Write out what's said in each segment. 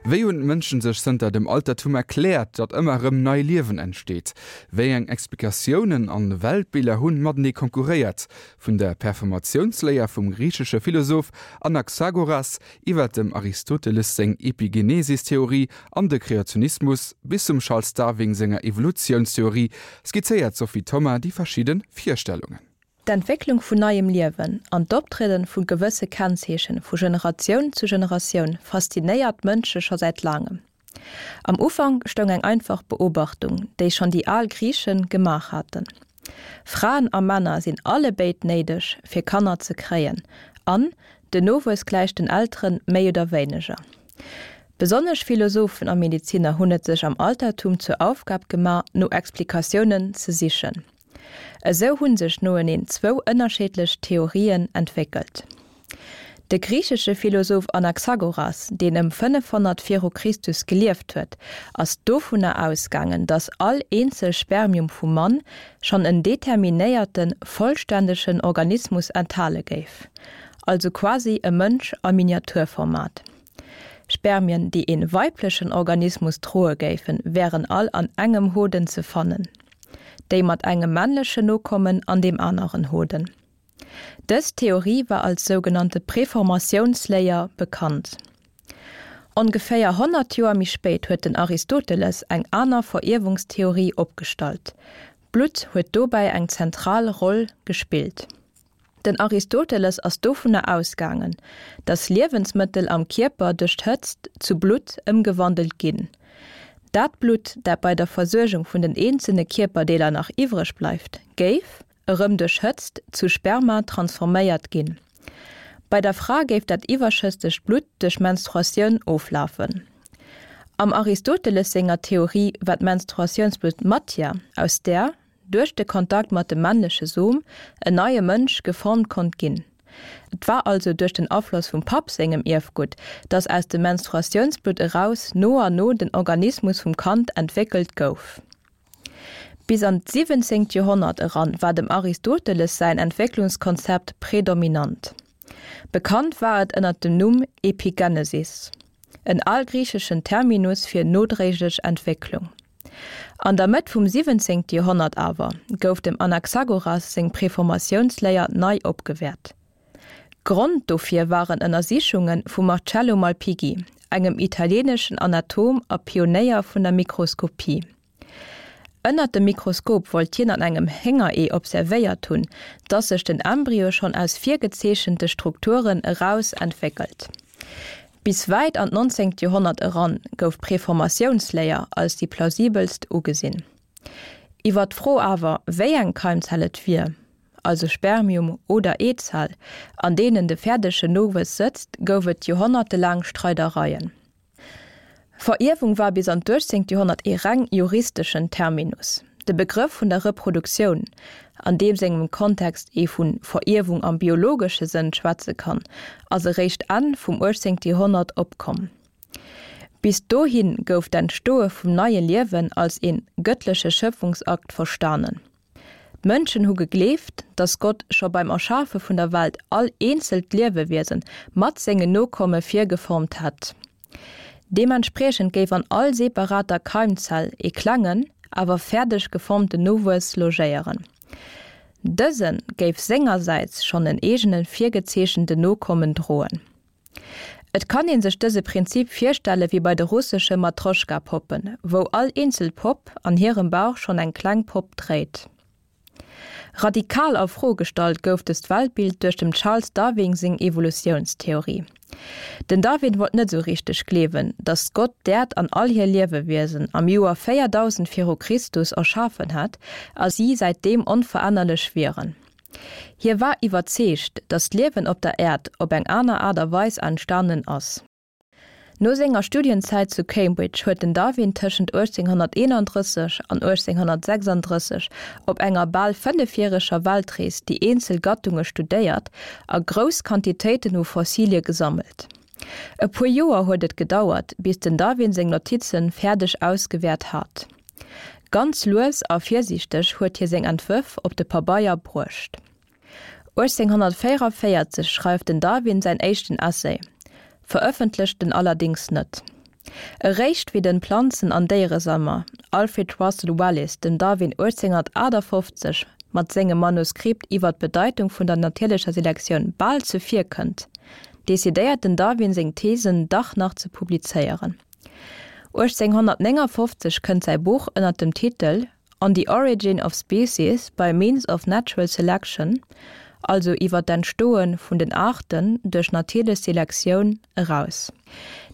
Wéi hunn d'Mënschen sech zënter dem Altertum erkläert, datt ëmmer erëm nei Liewen entsteet? Wéi eng Explikatiounen an Weltbiller hunn matenee konkurréiert? Vun der Performatiounsléier vum griichesche Philosoph Anaxagoras iwwer dem Aristoteles seng Epigenesis-Theorie an de Kreationismus bis zum Charles Darwin senger Evolutiounstheorie skizzéiert d'Sophie Thoma déi verschidde Virstellungen. D'Entwécklung vun neiem Liewen an d'Optrieden vu gewësse Kennzeechen vu Generatioun zu Generatioun faszinéiert d'Mënsche scho säit laangem. Am Ufank stoung eng einfach Beobachtung, déi schonn déi al Griiche gemaach haten, Fraen a Männer sinn allebéid néideg fir Kanner ze kréien an den Nowuess gläicht den Elteren méi oder wéineger. Besonnesch Philosophen a Medeziner hunn et sech am Altertum zur Aufgab gemaach no Explikatiounen ze sichen. Esou hu sech noeneen zwou ënnerscheedlech Theorien entwéckelt. De griichesche Philosoph Anaxagoras, deen ëm 500 viru Christus gelieft huet, ass dovunner ausgaangen, datt all eenzel Spermium vum Mann schonn en determinéierten, vollständegen Organismus enthale géif, also quasi e Mënsch a Miniaturformat. Spermien, déi ee weiblechen Organismus droe géifen, wären all an engem Hoden ze fannen. Déi mat engem männlechen Nokommen an deem aneren Hoden. Dës Theorie war als sougenannte Preformatiounsléier bekannt. Ongeféier 100 Joer méi spéit huet den Aristoteles eng aner Verierwungstheorie opgestallt. D'Blutt huet dobäi eng zentral Roll gespillt. Den Aristoteles ass dovunner ausgaangen, datt Liewensmëttel am Kierper duerch d'Hëtzt zu Blutt ëmgewandelt ginn. Dat Blutt, dat bei der Versuergung vun den eenzelne Kierperdeeler nach iwwreg bleift, géif, erëm duerch Hëtzt, zu Sperma transforméiert ginn. Bei der Fra géif dat iwwerschëssegt Blutt duerch Menstruatioun oflafen. Am Aristoteles senger Theorie war d'Menstruatiounsblutt Matière, aus där, duerch de Kontakt mat dem männleche Som en neie Mënsch geformt konnt ginn. Et war also duerch den Afloss vum Papp sengem Ierfgutt, dass aus dem Menstruatiounsblutt eraus no a no den Organismus vum Kand entwéckelt gouf. Bis an d'siwwenzéngt Joerhonnert eran war dem Aristoteles säin Entwécklungskonzept predominant. Bekannt war et ënner dem Numm Epigenesis, en algriicheschen Terminus fir nodréiglech Entwécklung. An der Mëtt vum 17. Joerhonnert awer gouf dem Anaxagoras seng Preformatiounsléier nei opgewäert. Grond dofir waren Ënnersichunge vum Marcello Malpighi, engem italieeneschen Anatom a Pionéier vun der Mikroskopie. Ënnert dem Mikroskop wollt hien an engem Héngeree observéiert hunn, dass sech den Embryo schonn aus virgezeechente Strukturen eraus entwéckelt. Bis wäit an d'nonzéngt Joerhonnert eran gouf d'Preformatiounsléier als déi plausibelst ugesinn. Iwwer d'Fro awer, wéi eng Keimzell et wier, also Spermium oder Eezell, an deenen de fäerdegen Nowuess sëtzt, gouf et joerhonnertelaang Streidereien. Verierwung war bis an d'uechtzéngt Joerhonnert ee reng juristeschen Terminus. De Begrëff vun der Reproduktioun, an deem sengem Kontext ee vu Verierwung am biologesche Sënn schwätze kann, ass eréischt Enn vum uechtzéngte Joerhonnert opkomm. Bis dohi gouf d'Entstoe vum neie Liewen als ee gëttleche Schëpfungsakt verstanen. D'Mënschen hu gegleeft, datt Gott scho beim Erschafe vun der Welt all eenzelt Liewewiese mat sengen Nokomme virgeformt hätt. Deementspriechend géif an all separater Keimzell ee klengen, awer fäerdeg geformten Nowuess logéieren. Dëse géif sengersäits schonn en eegene virgezeechenten Nokommen droen. Et kann ee sech dëse Prinzip virstelle wéi bei de russesche Matroschka-Poppen, wou all eenzel Popp an hirem Bauch schonn eng kleng Popp dréit. Radikal a Fro gestallt gouf dëst Weltbild duerch dem Charles Darwin seng Evolutiounstheorie. Den Darwin wollt net esou richteg gleewen, datt Gott d'Äerd an all hir Liewewiesen am Joer 4000 viru Christus erschafen hätt a si säitdeem onverännerlech wieren. Hie war iwwerzeegt, datt d'Liewen op der Äerd op eng aner Aart a Weis entstanen ass. No senger Studienzäit zu Cambridge huet den Darwin tëschent 1831 an 1836 op enger bal fënnefjäreger Weltrees déi eenzel Gattunge studéiert a grouss Quantitéiten u Fossilie gesammelt. E puer Joer huet et gedauert, bis den Darwin seng Notize fäerdeg ausgewäert hat. Ganz lues a virsiichteg huet hie seng Entwërf op de Pabeier bruecht. 1844 schreift den Darwin säin éischten Essay, verëffentlecht en allerdéngs net. Eréischt wéi den Planzen an Déieresammler Alfred Russel Wallace dem Darwin 1858 mat sengem Manuskript iwwer d'Bedeitung vun der natierlecher Selektioun bal zevirkënnt, decidéiert den Darwin seng Thesen dach nach ze publizéieren. 1859 kënnt säi Buch ënner dem Titel On the Origin of Species by Means of Natural Selection, also iwwer d'Entstoe vun den Aarten duerch natierlech Selektioun, eraus.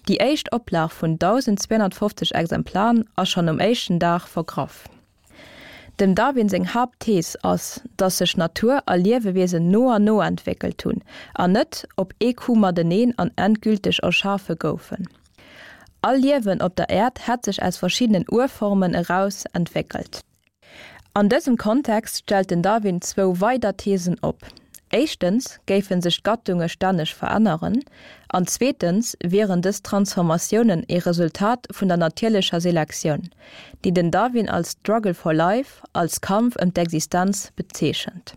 Déi éischt Oplag vun 1.250 Exemplaren ass schonn um éischten Dag vergraff. Dem Darwin seng Haaptthees ass, datt sech Natur a Liewewiesen no an no entwéckelt hunn an net op ee Coup mateneen an endgülteg erschafe goufen. All Liewen op der Äerd hätt sech aus verschiddenen Urformen eraus entwéckelt. An dësem Kontext stellt den Darwin zwou weider Theesen op, Éischtens géife sech d'Gattunge stänneg veränneren an zweetens wieren dës Transformatiounen ee Resultat vun der natierlecher Selektioun, déi den Darwin als Struggle for life, als Kampf ëm d'Existenz bezeechent.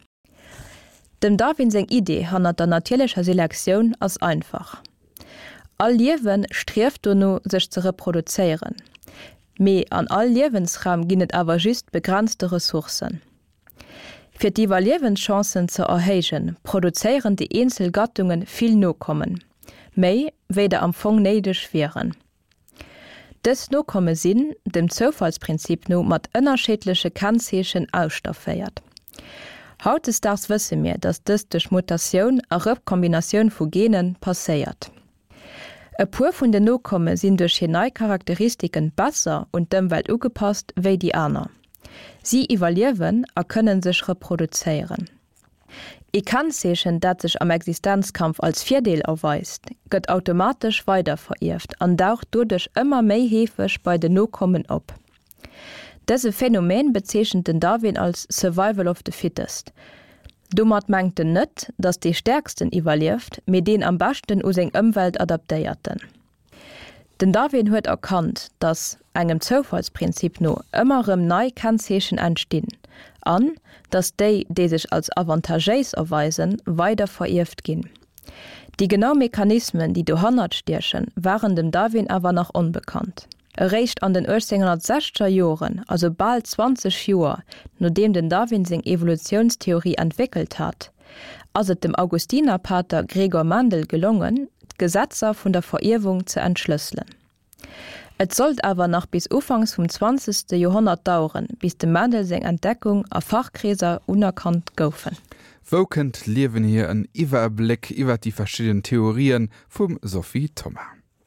Dem Darwin seng Idee hannert der natierlecher Selektioun ass einfach, All Liewe strieft dono sech ze reproduzéieren, mee an all Liewensraum ginn et awer just begrenzte Ressourcen. Fir d'Iwwerliewenschancen ze erhéijen, produzéieren déi eenzel Gattunge vill Nokommen, méi wéi der am Fong néideg wieren. Dës Nokomme sinn, dem Zoufallsprinzip no, mat ënnerscheedleche Kennzeechen ausstafféiert. Hautdesdaags wësse mir, datt dëst duerch Mutatioun a Rekombinatioun vu Gene passéiert. E puer vun den Nokomme sinn duerch hir nei Charakteristiken besser un d'Ëmwelt ugepasst wéi déi aner. Si iwwerliewen a kënnen sech reproduzéieren. Ee Kennzeechen, dat sech am Existenzkampf als Virdeel erweist, gëtt automatesch weiderverierft an daucht doduerch ëmmer méi heefeg bei den Nokommen op. Dëse Phänomen bezeechent den Darwin als Survival of the fittest. Domat mengt en net, datt dee Stäerksten iwwerlieft, mee deen am beschten u seng Ëmwelt adaptéierten. Den Darwin huet erkannt, datt, engem Zoufallsprinzip no, ëmmer erëm nei Kennzeechen entstinn an datt déi, déi sech als avantagéis erweisen, weider verierft ginn. Déi genau Mechanismen, déi dohannert stiechen, waren dem Darwin awer nach onbekannt. Eréischt an den 1860er Joren, also bal 20 Joer nodeem den Darwin seng Evolutiounstheorie entwéckelt hat, ass et dem Augustinerpater Gregor Mendel gelongen, d'Gesetzer vun der Verierwung ze entschlësselen. Et sollt awer nach bis ufanks vum zwanzegste Joerhonnert daueren, bis dem Mendel seng Entdeckung a Fachkreeser unerkannt goufen. Wou kënnt d'Liewen hier? En Iwwerbléck iwwer déi verschidden Theorien vum Sophie Thoma.